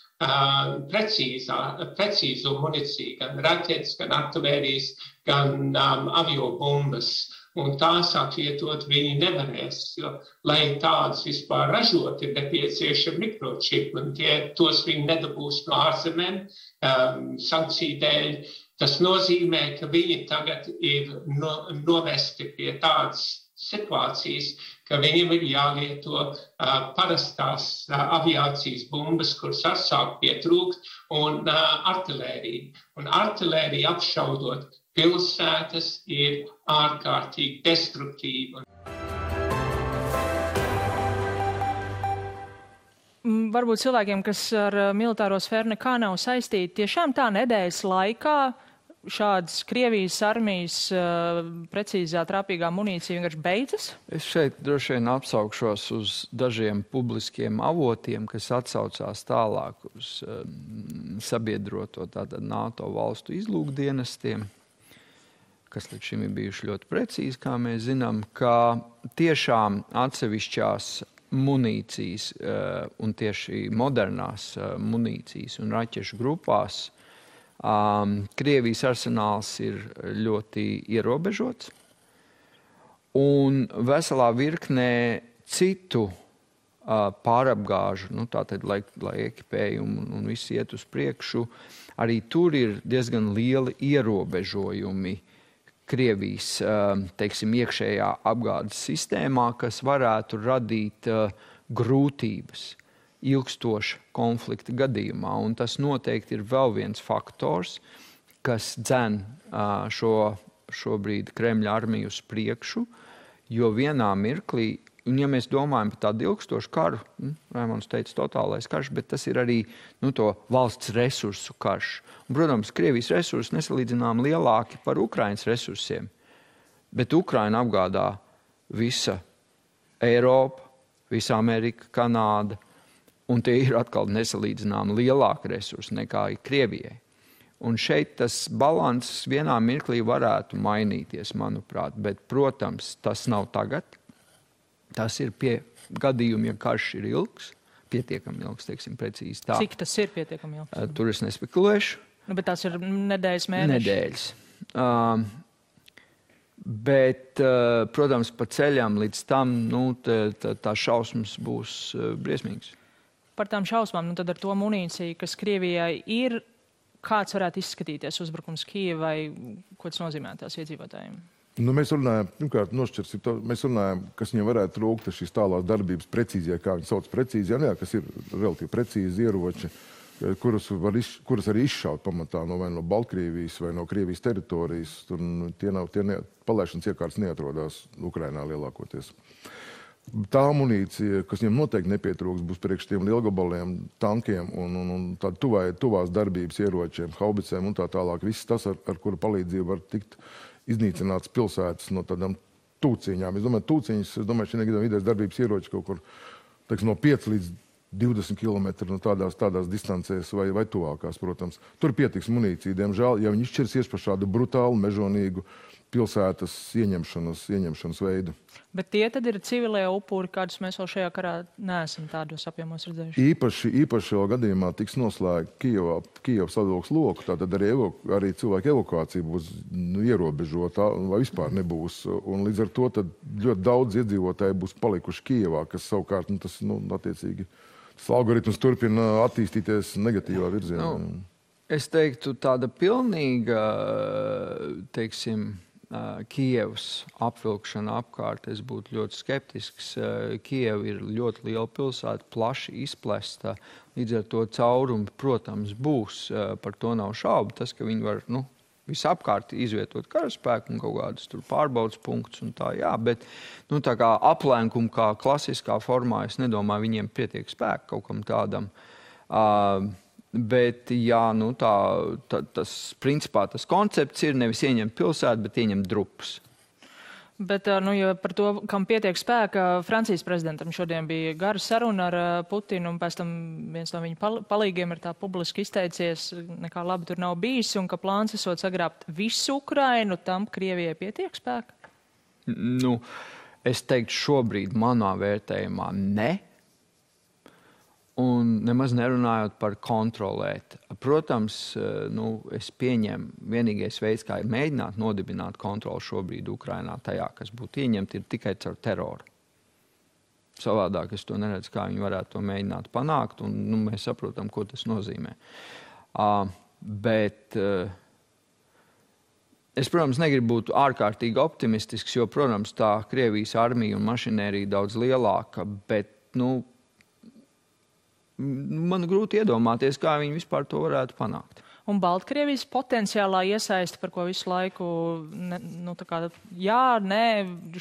precīzo municiju, gan raķetes, gan artilērijas, gan aviobumbas. Un tās atvietot viņi nevarēs, jo, lai tādas vispār ražot, ir nepieciešami mikročipi, un tos viņi nedabūs no ārzemēm sankciju dēļ. Tas nozīmē, ka viņi tagad ir novesti pie tādas situācijas, ka viņiem ir jālieto parastās aviācijas bumbas, kuras atsāk pietrūkt, un artilērija. Un artilērija apšaudot pilsētas ir ārkārtīgi destruktīva. Varbūt cilvēkiem, kas ar militāro sfēru nekā nav saistīti, tiešām tā nedēļas laikā šādas Krievijas armijas precīzā trāpīgā munīcija vienkārši beidzas? Es šeit droši vien apsaukšos uz dažiem publiskiem avotiem, kas atsaucās tālāk uz sabiedroto tātad NATO valstu izlūkdienestiem, kas līdz šim ir bijuši ļoti precīzi, kā mēs zinām, ka tiešām atsevišķās munīcijas un tieši modernās munīcijas un raķešu grupās Krievijas arsenāls ir ļoti ierobežots, un veselā virknē citu pārapgāžu, tātad, lai ekipējumu un viss iet uz priekšu, arī tur ir diezgan lieli ierobežojumi Krievijas, teiksim, iekšējā apgādes sistēmā, kas varētu radīt grūtības ilgstoša konflikta gadījumā. Un tas noteikti ir vēl viens faktors, kas dzen šobrīd Kremļa armiju uz priekšu, jo vienā mirklī, un ja mēs domājam par tādu ilgstošu karu, Raimonds teica totālais karš, bet tas ir arī to valsts resursu karš. Un, protams, Krievijas resursi nesalīdzinām lielāki par Ukrainas resursiem, bet Ukraina apgādā visa Eiropa, visa Amerika, Kanāda, un tie ir atkal nesalīdzinām lielāki resursi nekā Krievijai. Un šeit tas balans vienā mirklī varētu mainīties, manuprāt, bet, protams, tas nav tagad. Tas ir pie gadījuma, ja karš ir ilgs, pietiekami ilgs, teiksim, precīzi tā. Cik tas ir pietiekami ilgs? Tur es nespekulēšu. Bet tās ir nedēļas, mēneši? Nedēļas. Bet, protams, pa ceļam līdz tam, tā šausmas būs briesmīgas. Par tām šausmām, tad ar to munīciju, kas Krievijai ir, kāds varētu izskatīties uzbrukums Kijevai, ko tas nozīmē tās iedzīvotājiem? Mēs runājam, pirmkārt, mēs runājam, kas viņam varētu trūkt šīs tālās darbības precīzijā, kā viņi sauc precīzijā, kas ir relatīvi precīzi ieroči, kuras arī izšaut pamatā vai no Baltkrievijas vai no Krievijas teritorijas. Palaišanas iekārtas neatrodās Ukrainā lielākoties. Tā amunīcija, kas viņam noteikti nepietrūks, būs priekš tiem lielgabaliem, tankiem un tādu tuvās darbības ieročiem, haubicēm un tā tālāk. Viss tas, ar kuru palīdzību var tikt iznīcināts pilsētas no tādām tūciņām. Es domāju, šī vidējas darbības ieroči kaut kur, teiksim, no 5 līdz 20 km no tādās distancēs vai tuvākās, protams. Tur pietiks munīcija, diemžēl, ja viņi izšķirsies par šādu brutālu, mežonīgu pilsētas ieņemšanas veidu. Bet tie tad ir civilie upuri, kādus mēs vēl šajā karā neesam tādos apjomos redzējuši? Īpaši vēl gadījumā tiks noslēgta Kijevas sadalības loku, tātad arī cilvēku evakuācija būs ierobežota vai vispār nebūs. Un līdz ar to tad ļoti daudz iedzīvotāji būs palikuši Kijevā, kas savukārt, attiecīgi, tas algoritms turpina attīstīties negatīvā virzienā. Es teiktu, tāda pilnīga, teiksim, Kijevas apvilkšana apkārt, es būtu ļoti skeptisks. Kijeva ir ļoti liela pilsēta, plaši izplesta, līdz ar to caurumi, protams, būs, par to nav šaubu. Tas, ka viņi var, visapkārt izvietot karaspēku un kaut kādus tur pārbaudas punktus un tā, jā, bet, tā kā aplēnkumu, kā klasiskā formā, es nedomāju, viņiem pietiek spēku kaut kam tādam. Bet, jā, principā tas koncepts ir nevis ieņemt pilsētu, bet ieņemt drupas. Bet, ja par to, kam pietiek spēka, Francijas prezidentam šodien bija gara saruna ar Putinu, un pēc tam viens no viņa palīgiem ir tā publiski izteicies, nekā labi tur nav bijis, un ka plāns esot sagrābt visu Ukrainu, tam Krievijai pietiek spēka? Es teiktu šobrīd manā vērtējumā ne. Un nemaz nerunājot par kontrolēt. Protams, es pieņemu, vienīgais veids, kā ir mēģināt nodibināt kontroli šobrīd Ukrainā tajā, kas būtu ieņemti, ir tikai caur teroru. Savādāk es to neredzu, kā viņi varētu to mēģināt panākt, un mēs saprotam, ko tas nozīmē. Bet es, protams, negribu būt ārkārtīgi optimistisks, jo, protams, tā Krievijas armija un mašinērija daudz lielāka, bet, man grūti iedomāties, kā viņi vispār to varētu panākt. Un Baltkrievijas potenciālā iesaiste, par ko visu laiku,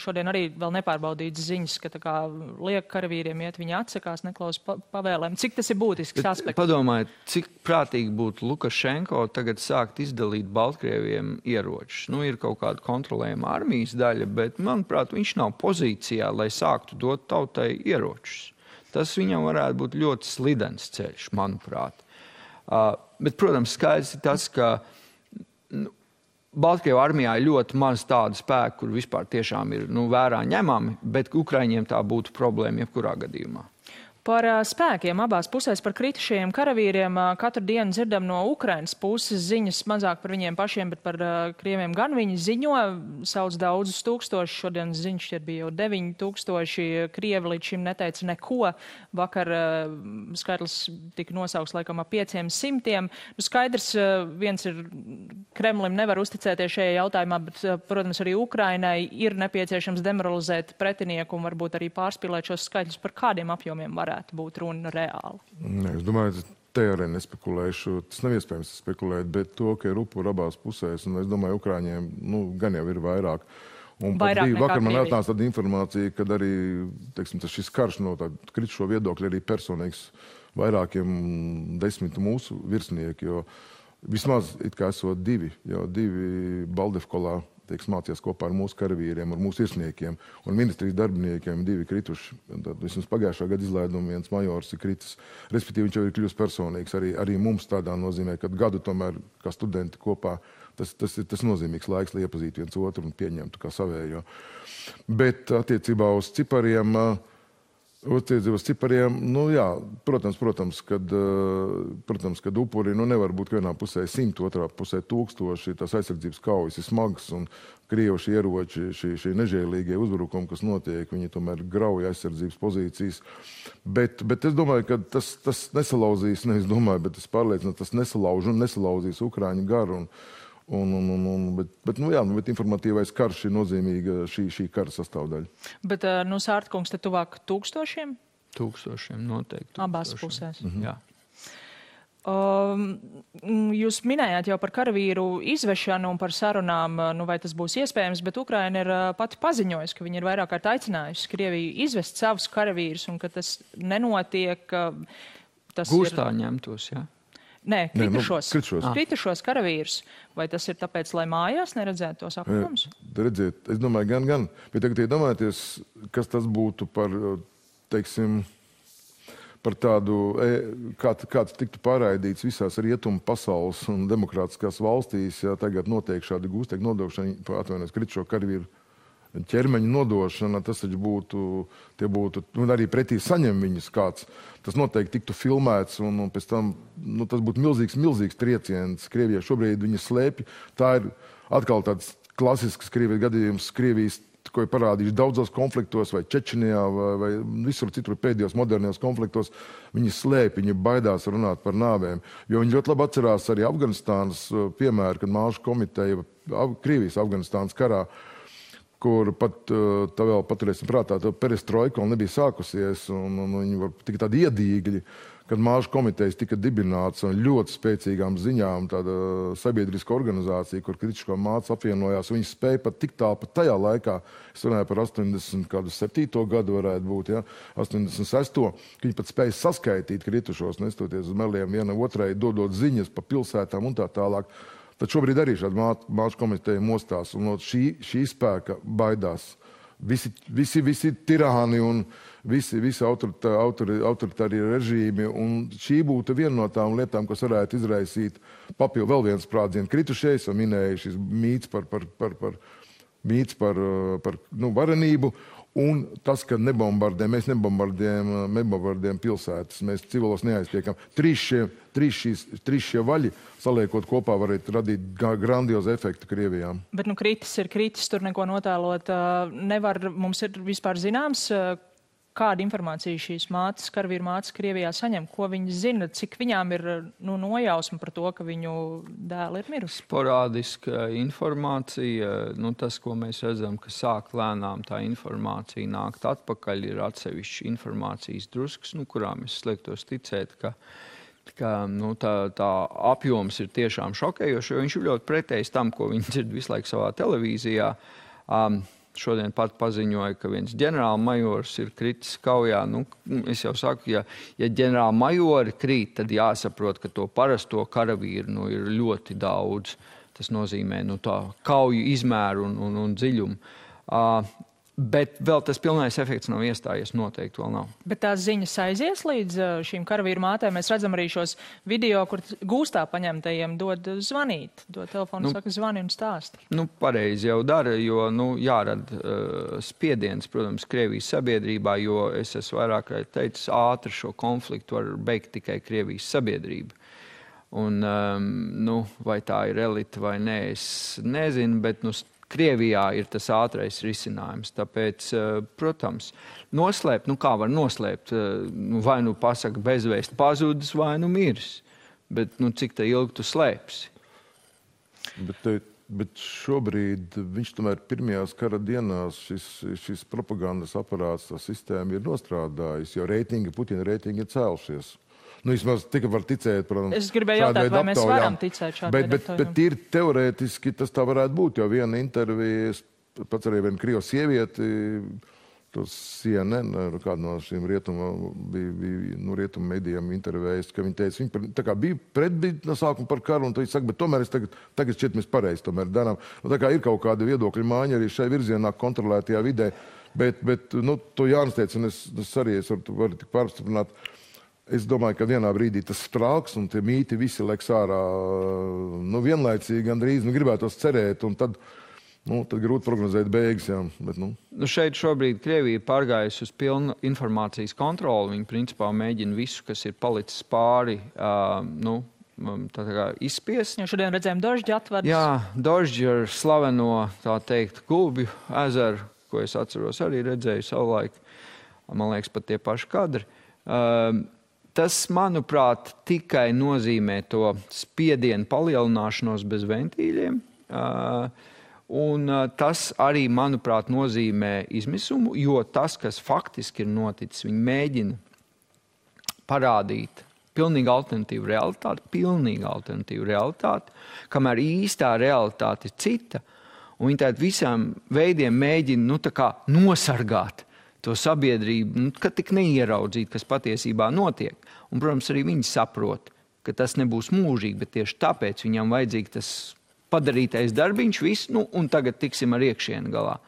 šodien arī vēl nepārbaudīts ziņas, ka liek karavīriem iet, viņi atsakās, neklaus pavēlēm. Cik tas ir būtisks aspekts? Padomājiet, cik prātīgi būtu Lukašenko tagad sākt izdalīt Baltkrieviem ieročus. Ir kaut kāda kontrolējama armijas daļa, bet, manuprāt, viņš nav pozīcijā, lai sāktu dot tautai ieročus. Tas viņam varētu būt ļoti slidens ceļš, manuprāt. Bet, protams, skaidrs ir tas, ka Baltkrievu armijā ir ļoti maz tādu spēku, kur vispār tiešām ir vērā ņemami, bet Ukraiņiem tā būtu problēma jebkurā gadījumā. Par spēkiem abās pusēs, par kritušajiem karavīriem katru dienu dzirdam no Ukrainas puses ziņas mazāk par viņiem pašiem, bet par krieviem gan viņi ziņo, sauc daudzus tūkstošus, šodien ziņš bija jau 9000, krievi līdz šim neteica neko, vakar skaitlis tika nosaukts laikam ap 500. Skaidrs, viens ir Kremlim nevar uzticēties šajā jautājumā, bet, protams, arī Ukrainai ir nepieciešams demoralizēt pretinieku un varbūt arī pārspīlēt šos skaitļus, par kādiem apjomiem varētu būt runa reāli. Nē, es domāju, te arī nespekulēšu. Tas nav iespējams spekulēt, bet to, ka ir upuri abās pusēs, un es domāju, Ukraiņiem gan jau ir vairāk. Un vairāk nekā vakar man Krievija. atnāca tāda informācija, kad arī, teiksim, šis karš no tāda kritušo viedokļa arī personīgs vairākiem 10 mūsu virsnieki, jo vismaz it kā esot divi Baldevkolā, mācījās kopā ar mūsu karavīriem, ar mūsu virsniekiem un ministrijas darbiniekiem 2 krituši. Tad vismaz pagājušā gada izlaiduma viens majors ir kritis. Respektīvi, viņš jau ir kļūst personīgs. Arī mums tādā nozīmē, ka gadu tomēr, kā studenti kopā, tas nozīmīgs laiks, lai iepazītu viens otru un pieņemtu kā savējo. Bet attiecībā uz cipariem, protams, kad upuri nevar būt vienā pusē 100, otrā pusē 1000, tās aizsardzības kaujas ir smagas un krievuši ieroči, šie nežēlīgie uzbrukumi, kas notiek, viņi tomēr grauja aizsardzības pozīcijas. Bet es domāju, ka tas nesalauzīs, nevis domāju, bet es pārliecinu, tas nesalauzīs Ukraiņu garu. Bet informatīvais karš ir nozīmīga šī kara sastāvdaļa. Bet, Sārtkungs, te tuvāk 1000? 1000 noteikti. Abās pusēs. Jā. Jūs minējāt jau par karavīru izvešanu un par sarunām, vai tas būs iespējams, bet Ukraina ir pati paziņojusi, ka viņi ir vairāk kārt aicinājusi Krieviju izvest savus karavīrus un ka tas nenotiek. Gūstā ņemtos, jā. Nē, kritušos karavīrus. Vai tas ir tāpēc, lai mājās neredzētu tos apjomus? Redziet, es domāju, gan. Bet tagad iedomājieties, kas tas būtu par, teiksim, par tādu, kāds tiktu pārraidīts visās rietumu pasaules un demokrātiskās valstīs, ja tagad notiek šādi gūstekļu nodošana, atvainojos, kritušo karavīru ķermeņa nodošana, tas būtu, arī pretī saņem viņus kāds. Tas noteikti tiktu filmēts un pēc tam, tas būtu milzīgs trieciens. Krievijai šobrīd viņi slēpj. Tā ir atkal tāds klasisks Krievijas gadījums, Krievijas, ko ir parādījuši daudzos konfliktos, vai Čečenijā, vai visur citur pēdējos modernajos konfliktos. Viņi slēpj, viņi baidās runāt par nāvēm. Jo viņi ļoti labi atcerās arī Afganistānas piemēru, kad Māšu komiteja Krievijas Afganistānas karā, kur pat tā vēl paturēsim prātā, tā perestroika vēl nebija sākusies, un viņi var tik tādi iedīgļi, kad Māšu komitejas tika dibināts un ļoti spēcīgām ziņām tāda sabiedriska organizācija, kur kritisko mācu apvienojās, viņi spēja pat tik tālu pat tajā laikā, es runāju par 87. gadu varētu būt, 86. ka viņi pat spēja saskaitīt kritušos, nestoties uz meliem vienam otrai, dodot ziņas pa pilsētām un tā tālāk. Tad šobrīd arī šāda Māšu komiteja mostās un no šī spēka baidās. Visi tirāni un visi autoritārie režīmi. Un šī būtu viena no tām lietām, kas varētu izraisīt papildu vēl viens sprādzienu. Kritušies, jau minēja šis mīts par varenību. Un tas, ka mēs nebombardējam pilsētas, mēs civilos neaiztiekam. Trīs šie vaļi, saliekot kopā, varētu radīt grandiozu efektu Krievijām. Bet kritis ir kritis, tur neko notēlot nevar. Mums ir vispār zināms, kāda informācija šīs karavīru mātes Krievijā saņem, ko viņi zina, cik viņām ir nojausma par to, ka viņu dēli ir mirusi? Sporādiska informācija, tas, ko mēs redzam, ka sāk lēnām tā informācija nākt atpakaļ, ir atsevišķi informācijas druskas, kurām es sliektos ticēt, ka tā apjoms ir tiešām šokējoši, jo viņš ir ļoti pretējs tam, ko viņi dzird visu laiku savā televīzijā. Šodien pat paziņoja, ka viens ģenerālmajors ir kritis kaujā. Es jau saku, ja ģenerālmajori krīt, tad jāsaprot, ka to parasto karavīru ir ļoti daudz. Tas nozīmē tā kauju izmēru un dziļumu. Bet vēl tas pilnais efekts nav iestājies, noteikti vēl nav. Bet tās ziņas aizies līdz šīm karavīru mātēm. Mēs redzam arī šos video, kur gūstā paņemtajiem dod zvanīt. Dod telefonu, saka zvani un stāsti. Pareizi jau dara, jo jārada spiediens, protams, Krievijas sabiedrībā, jo es esmu vairāk teicis, ātri šo konfliktu var beigt tikai Krievijas sabiedrība. Un, vai tā ir elite vai nē, es nezinu, bet, Krievijā ir tas ātrais risinājums. Tāpēc, protams, noslēpt, kā var noslēpt, vai pasaka bezvēst pazudis, vai miris. Bet, cik tā ilgi tu slēpsi? Bet šobrīd viņš tomēr pirmajās kara dienās šis propagandas aparāts, tā sistēma ir nostrādājis, jo Putina reitingi ir cēlušies. Vismaz tikai var ticēt, protams. Es gribēju jautāt, vai mēs varam ticēt šādai aptaujām. Bet ir teorētiski tas tā varētu būt, jo viena intervija, pats arī viena Krievu sievieti, tos CNN, kāda no šīm rietumu medijām intervējis, ka viņa teica, viņa tā kā bija no sākuma par karu, un viņa saka, bet tomēr tagad šķiet mēs pareizi tomēr darām. Tā kā ir kaut kāda viedokļa māņa arī šai virzienā kontrolētajā vidē, bet to Jānis teica, un es arī varu tik pārstiprināt. Es domāju, ka vienā brīdī tas sprāks un tie mīti visi leks ārā vienlaicīgi gandrīz. Gribētos cerēt, un tad grūti prognozēt beigas. Jā, bet, šeit šobrīd Krievija ir pārgājusi uz pilnu informācijas kontroli. Viņi principā mēģina visu, kas ir palicis pāri, izspiest. Jo šodien redzējām Dožģi atvadas. Jā, Dožģi ar slaveno, tā teikt, Gulbju ezeru, ko es atceros arī redzēju savulaik. Man liekas, pat tie paši kadri. Tas, manuprāt, tikai nozīmē to spiedienu palielināšanos bez ventīļiem. Un tas arī, manuprāt, nozīmē izmisumu, jo tas, kas faktiski ir noticis, viņi mēģina parādīt pilnīgi alternatīvu realitāti, kamēr īstā realitāte ir cita. Un viņi tātad visām veidiem mēģina nosargāt to sabiedrību, ka tik neieraudzīt, kas patiesībā notiek. Un, protams, arī viņi saprot, ka tas nebūs mūžīgi, bet tieši tāpēc viņam vajadzīgi tas padarītais darbiņš, viss, un tagad tiksim ar iekšienu galā.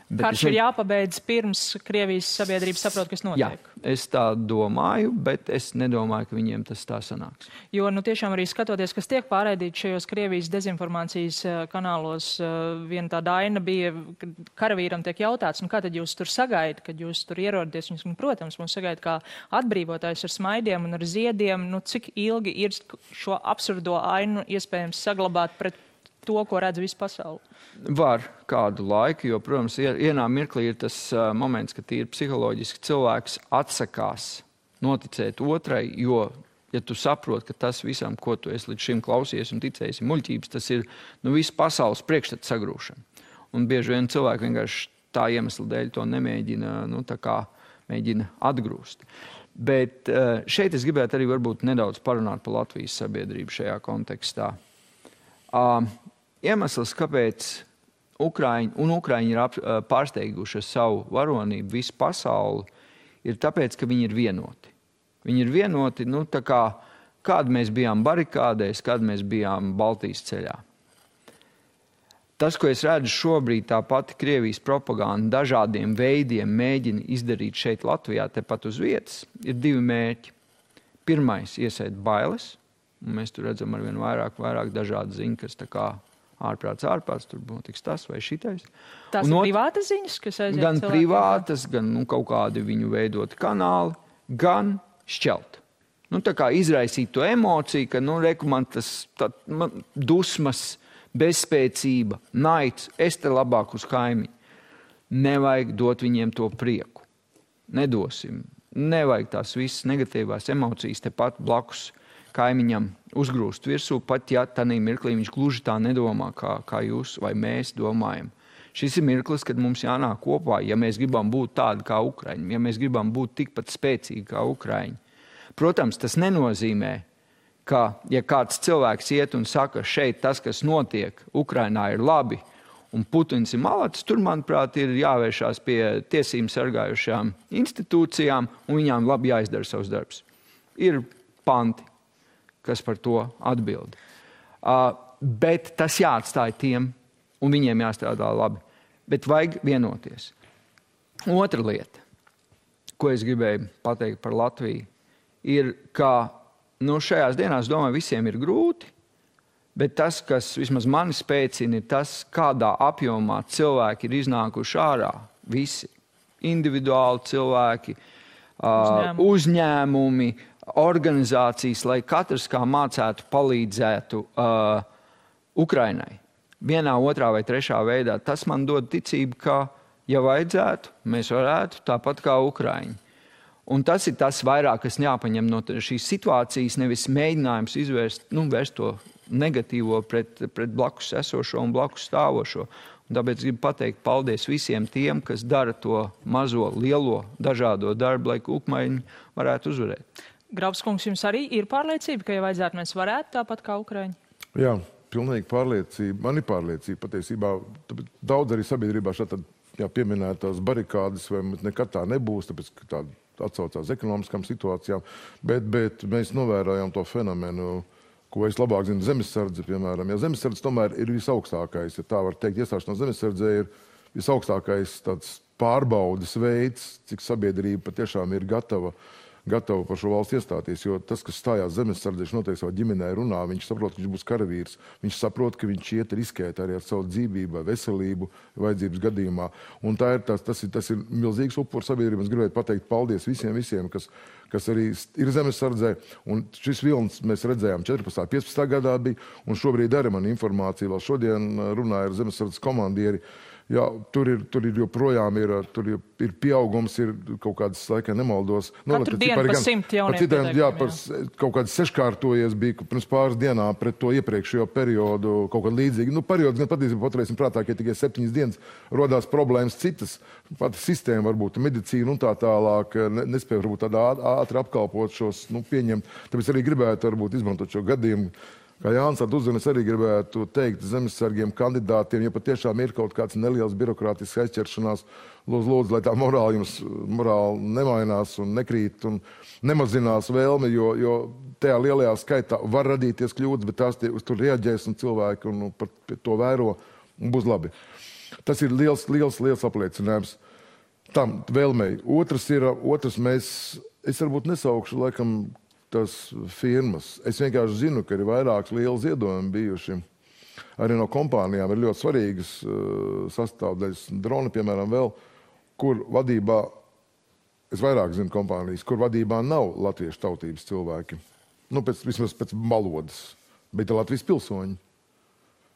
Karš ir jāpabeidz pirms Krievijas sabiedrība saprot, kas notiek. Jā, es tā domāju, bet es nedomāju, ka viņiem tas tā sanāks. Jo, tiešām arī skatoties, kas tiek pārraidīts šajos Krievijas dezinformācijas kanālos, viena tā daina bija, karavīram tiek jautāts, kā tad jūs tur sagaidat, kad jūs tur ierodaties. Viņus, protams, mums sagaida kā atbrīvotājs ar smaidiem un ar ziediem. Cik ilgi ir šo absurdo ainu iespējams saglabāt pret to, ko redz visu pasauli? Var kādu laiku, jo, protams, vienā mirklī ir tas moments, ka tīri psiholoģiski cilvēks atsakās noticēt otrai, jo, ja tu saproti, ka tas visam, ko tu esi līdz šim klausies un ticējis, ir muļķības, tas ir visu pasaules priekšstatu sagrūšana. Un bieži vien cilvēki vienkārši tā iemesla dēļ to nemēģina, mēģina atgrūst. Bet šeit es gribētu arī varbūt nedaudz parunāt par Latvijas sabiedrību šajā kontekstā. Iemesls, kāpēc Ukraiņi ir pārsteiguši savu varonību visu pasauli, ir tāpēc, ka viņi ir vienoti. Viņi ir vienoti, kāda mēs bijām barikādēs, kāda mēs bijām Baltijas ceļā. Tas, ko es redzu šobrīd, tā pati Krievijas propaganda dažādiem veidiem mēģina izdarīt šeit Latvijā, tepat uz vietas, ir divi mērķi. Pirmais, iesēt bailes, un mēs tur redzam arvien vairāk dažādu ziņu, kas tā kā ārprāts, tur notiks tas vai šitais. Tās ir privātas ziņas, kas aiziet gan privātas, gan kaut kādi viņu veidoti kanāli, gan šķelt. Tā kā izraisīt to emociju, ka, man tas dusmas, bezspēcība, naids, es te labāk uz kaimiņu. Nevajag dot viņiem to prieku. Nedosim. Nevajag tās visas negatīvās emocijas tepat blakus kaimiņam uzgrūst virsū, pat ja tādā mirklī viņš gluži tā nedomā, kā jūs vai mēs domājam. Šis ir mirklis, kad mums jānāk kopā, ja mēs gribam būt tādi kā Ukraiņi, ja mēs gribam būt tikpat spēcīgi kā Ukraiņi. Protams, tas nenozīmē, ka, ja kāds cilvēks iet un saka, šeit tas, kas notiek Ukrainā, ir labi, un Putins ir malacis, tur, manuprāt, ir jāvēršās pie tiesību sargājušām institūcijām, un viņām labi jāizdara savs darbs. Ir panti, kas par to atbild. Bet tas jāatstāj tiem, un viņiem jāstrādā labi. Bet vajag vienoties. Otra lieta, ko es gribēju pateikt par Latviju, ir, ka šajās dienās, domāju, visiem ir grūti, bet tas, kas vismaz mani spēcina, ir tas, kādā apjomā cilvēki ir iznākuši ārā. Visi individuāli cilvēki, uzņēmumi, organizācijas, lai katrs kā mācētu, palīdzētu Ukrainai. Vienā, otrā vai trešā veidā. Tas man dod ticību, ka, ja vajadzētu, mēs varētu tāpat kā Ukraiņi. Un tas ir tas vairāk, kas jāpaņem no šīs situācijas, nevis mēģinājums vērst to negatīvo pret blakus esošo un blakus stāvošo. Un tāpēc gribu pateikt paldies visiem tiem, kas dara to mazo, lielo, dažādo darbu, lai Ukraiņi varētu uzvarēt. Grabskungs, jums arī ir pārliecība, ka, ja vajadzētu, mēs varētu tāpat kā Ukraiņi? Jā, pilnīgi pārliecība. Man ir pārliecība patiesībā. Daudz arī sabiedrībā šādi pieminētās barikādes, vai nekad tā nebūs, tāpēc, ka tāda atsaucās ekonomiskām situācijām, bet mēs novērojam to fenomenu, ko es labāk zinu, zemesardze, piemēram. Ja zemesardze tomēr ir visaugstākais, ja tā var teikt, iestāšanās zemesardzē ir visaugstākais tāds pārbaudes veids, cik sabiedrība patiešām ir gatava par šo valsts iestāties, jo tas, kas stājās zemesardzē, viņš noteikti savā ģimenē runā, viņš saprot, ka viņš būs karavīrs, viņš saprot, ka viņš iet riskēt arī ar savu dzīvību, veselību, vajadzības gadījumā. Un tas ir milzīgs upurs sabiedrība. Es gribētu pateikt paldies visiem, kas arī ir zemesardzē. Un šis vilnis mēs redzējām 14. 15. gadā bija, un šobrīd arī man informācija, vēl šodien runāja ar zemesardzes komandieri. Jā, tur ir joprojām ir pieaugums, ir kaut kādas, laikā nemaldos. Katru dienu pa 100 jauniem pieteikumi. Jā, kaut kāds seškārtojies bija pirms pāris dienām pret to iepriekšējo periodu, kaut kāda līdzīga. Periods gan patiesībā paturēsim prātā, ka tikai 7 dienas rodās problēmas citas. Pati sistēma varbūt, medicīna un tā tālāk nespēja varbūt tādā ātri apkalpot šos, pieņemt. Tāpēc arī gribētu varbūt izmantot šo gadījumu. Kā Jānis uzzina, es arī gribētu teikt zemesargiem kandidātiem, ja patiešām ir kaut kāds neliels birokrātisks aizķeršanās, lūdzu, lai tā morāli nemainās un nekrīt un nemazinās vēlme, jo tajā lielajā skaitā var radīties kļūdas, bet tās uz tur reaģēs un cilvēki un par to vēro un būs labi. Tas ir liels apliecinājums tam vēlmei. Es varbūt nesaukšu, laikam, tas firmas. Es vienkārši zinu, ka ir vairākas lieli ziedojumi bijuši. Arī no kompānijām ir ļoti svarīgas sastāvdaļas. Drona, piemēram, vēl, kur vadībā, es vairāk zinu kompānijas, kur vadībā nav latviešu tautības cilvēki. Vismaz pēc valodas, bet ir Latvijas pilsoņi.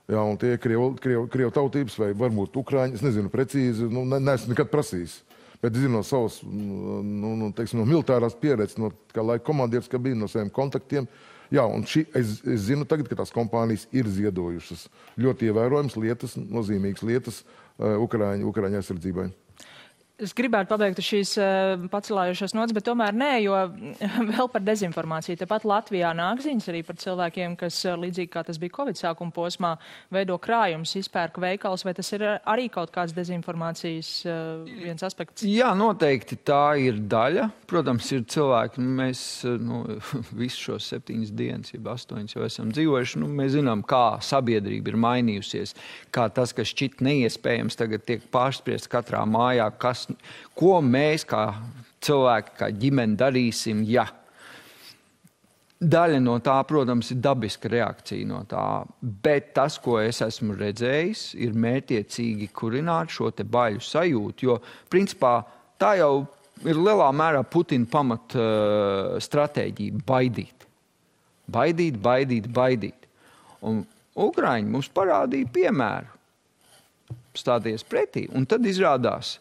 Jā, un tie krievu tautības vai varbūt ukraiņi, es nezinu precīzi, neesmu nekad prasījis. Bet es zinu no savas, no militārās pieredzes, no kā laika komandieris, ka bija no saviem kontaktiem. Jā, un es zinu tagad, ka tās kompānijas ir ziedojušas ļoti ievērojams lietas, nozīmīgas lietas Ukraiņu aizsardzībai. Es gribētu pabeigt šīs pacelājušās nots, bet tomēr nē, jo vēl par dezinformāciju. Tepat Latvijā nāk ziņas arī par cilvēkiem, kas līdzīgi kā tas bija Covid sākuma posmā, veido krājumus, izpērk veikals, vai tas ir arī kaut kāds dezinformācijas viens aspekts? Jā, noteikti tā ir daļa. Protams, ir cilvēki, mēs visu šos 7 dienas, 8 jau esam dzīvojuši, mēs zinām, kā sabiedrība ir mainījusies, kā tas, kas šķiet neiespējams, tagad tiek pārspriests katrā mājā, ko mēs kā cilvēki, kā ģimene darīsim, ja. Daļa no tā, protams, ir dabiska reakcija no tā, bet tas, ko es esmu redzējis, ir mērķiecīgi kurināt šo te baiļu sajūtu, jo, principā, tā jau ir lielā mērā Putina pamat stratēģija - baidīt. Baidīt. Un Ukraiņi mums parādīja piemēru stāties pretī, un tad izrādās,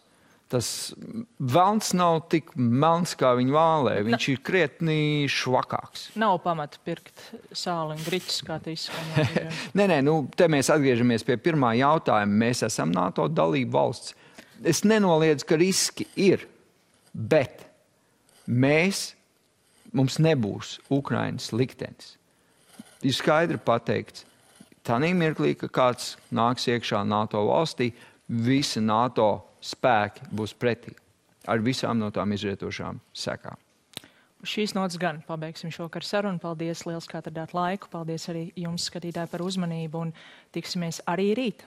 tas velns nav tik melns, kā viņa vālē. Viņš ir krietni švakāks. Nav pamata pirkt sāli un griķus, kā te izskanēja. Nē, te mēs atgriežamies pie pirmā jautājuma. Mēs esam NATO dalība valsts. Es nenoliedzu, ka riski ir, bet mums nebūs Ukrainas liktenis. Ir skaidri pateikts, tanī mirklī, ka kāds nāks iekšā NATO valstī, visi NATO spēki būs pretī ar visām no tām izrietošām sekām. Šīs notas gan pabeigsim šovakar sarunu. Paldies liels, ka atradāt laiku. Paldies arī jums, skatītāji, par uzmanību un tiksimies arī rīt.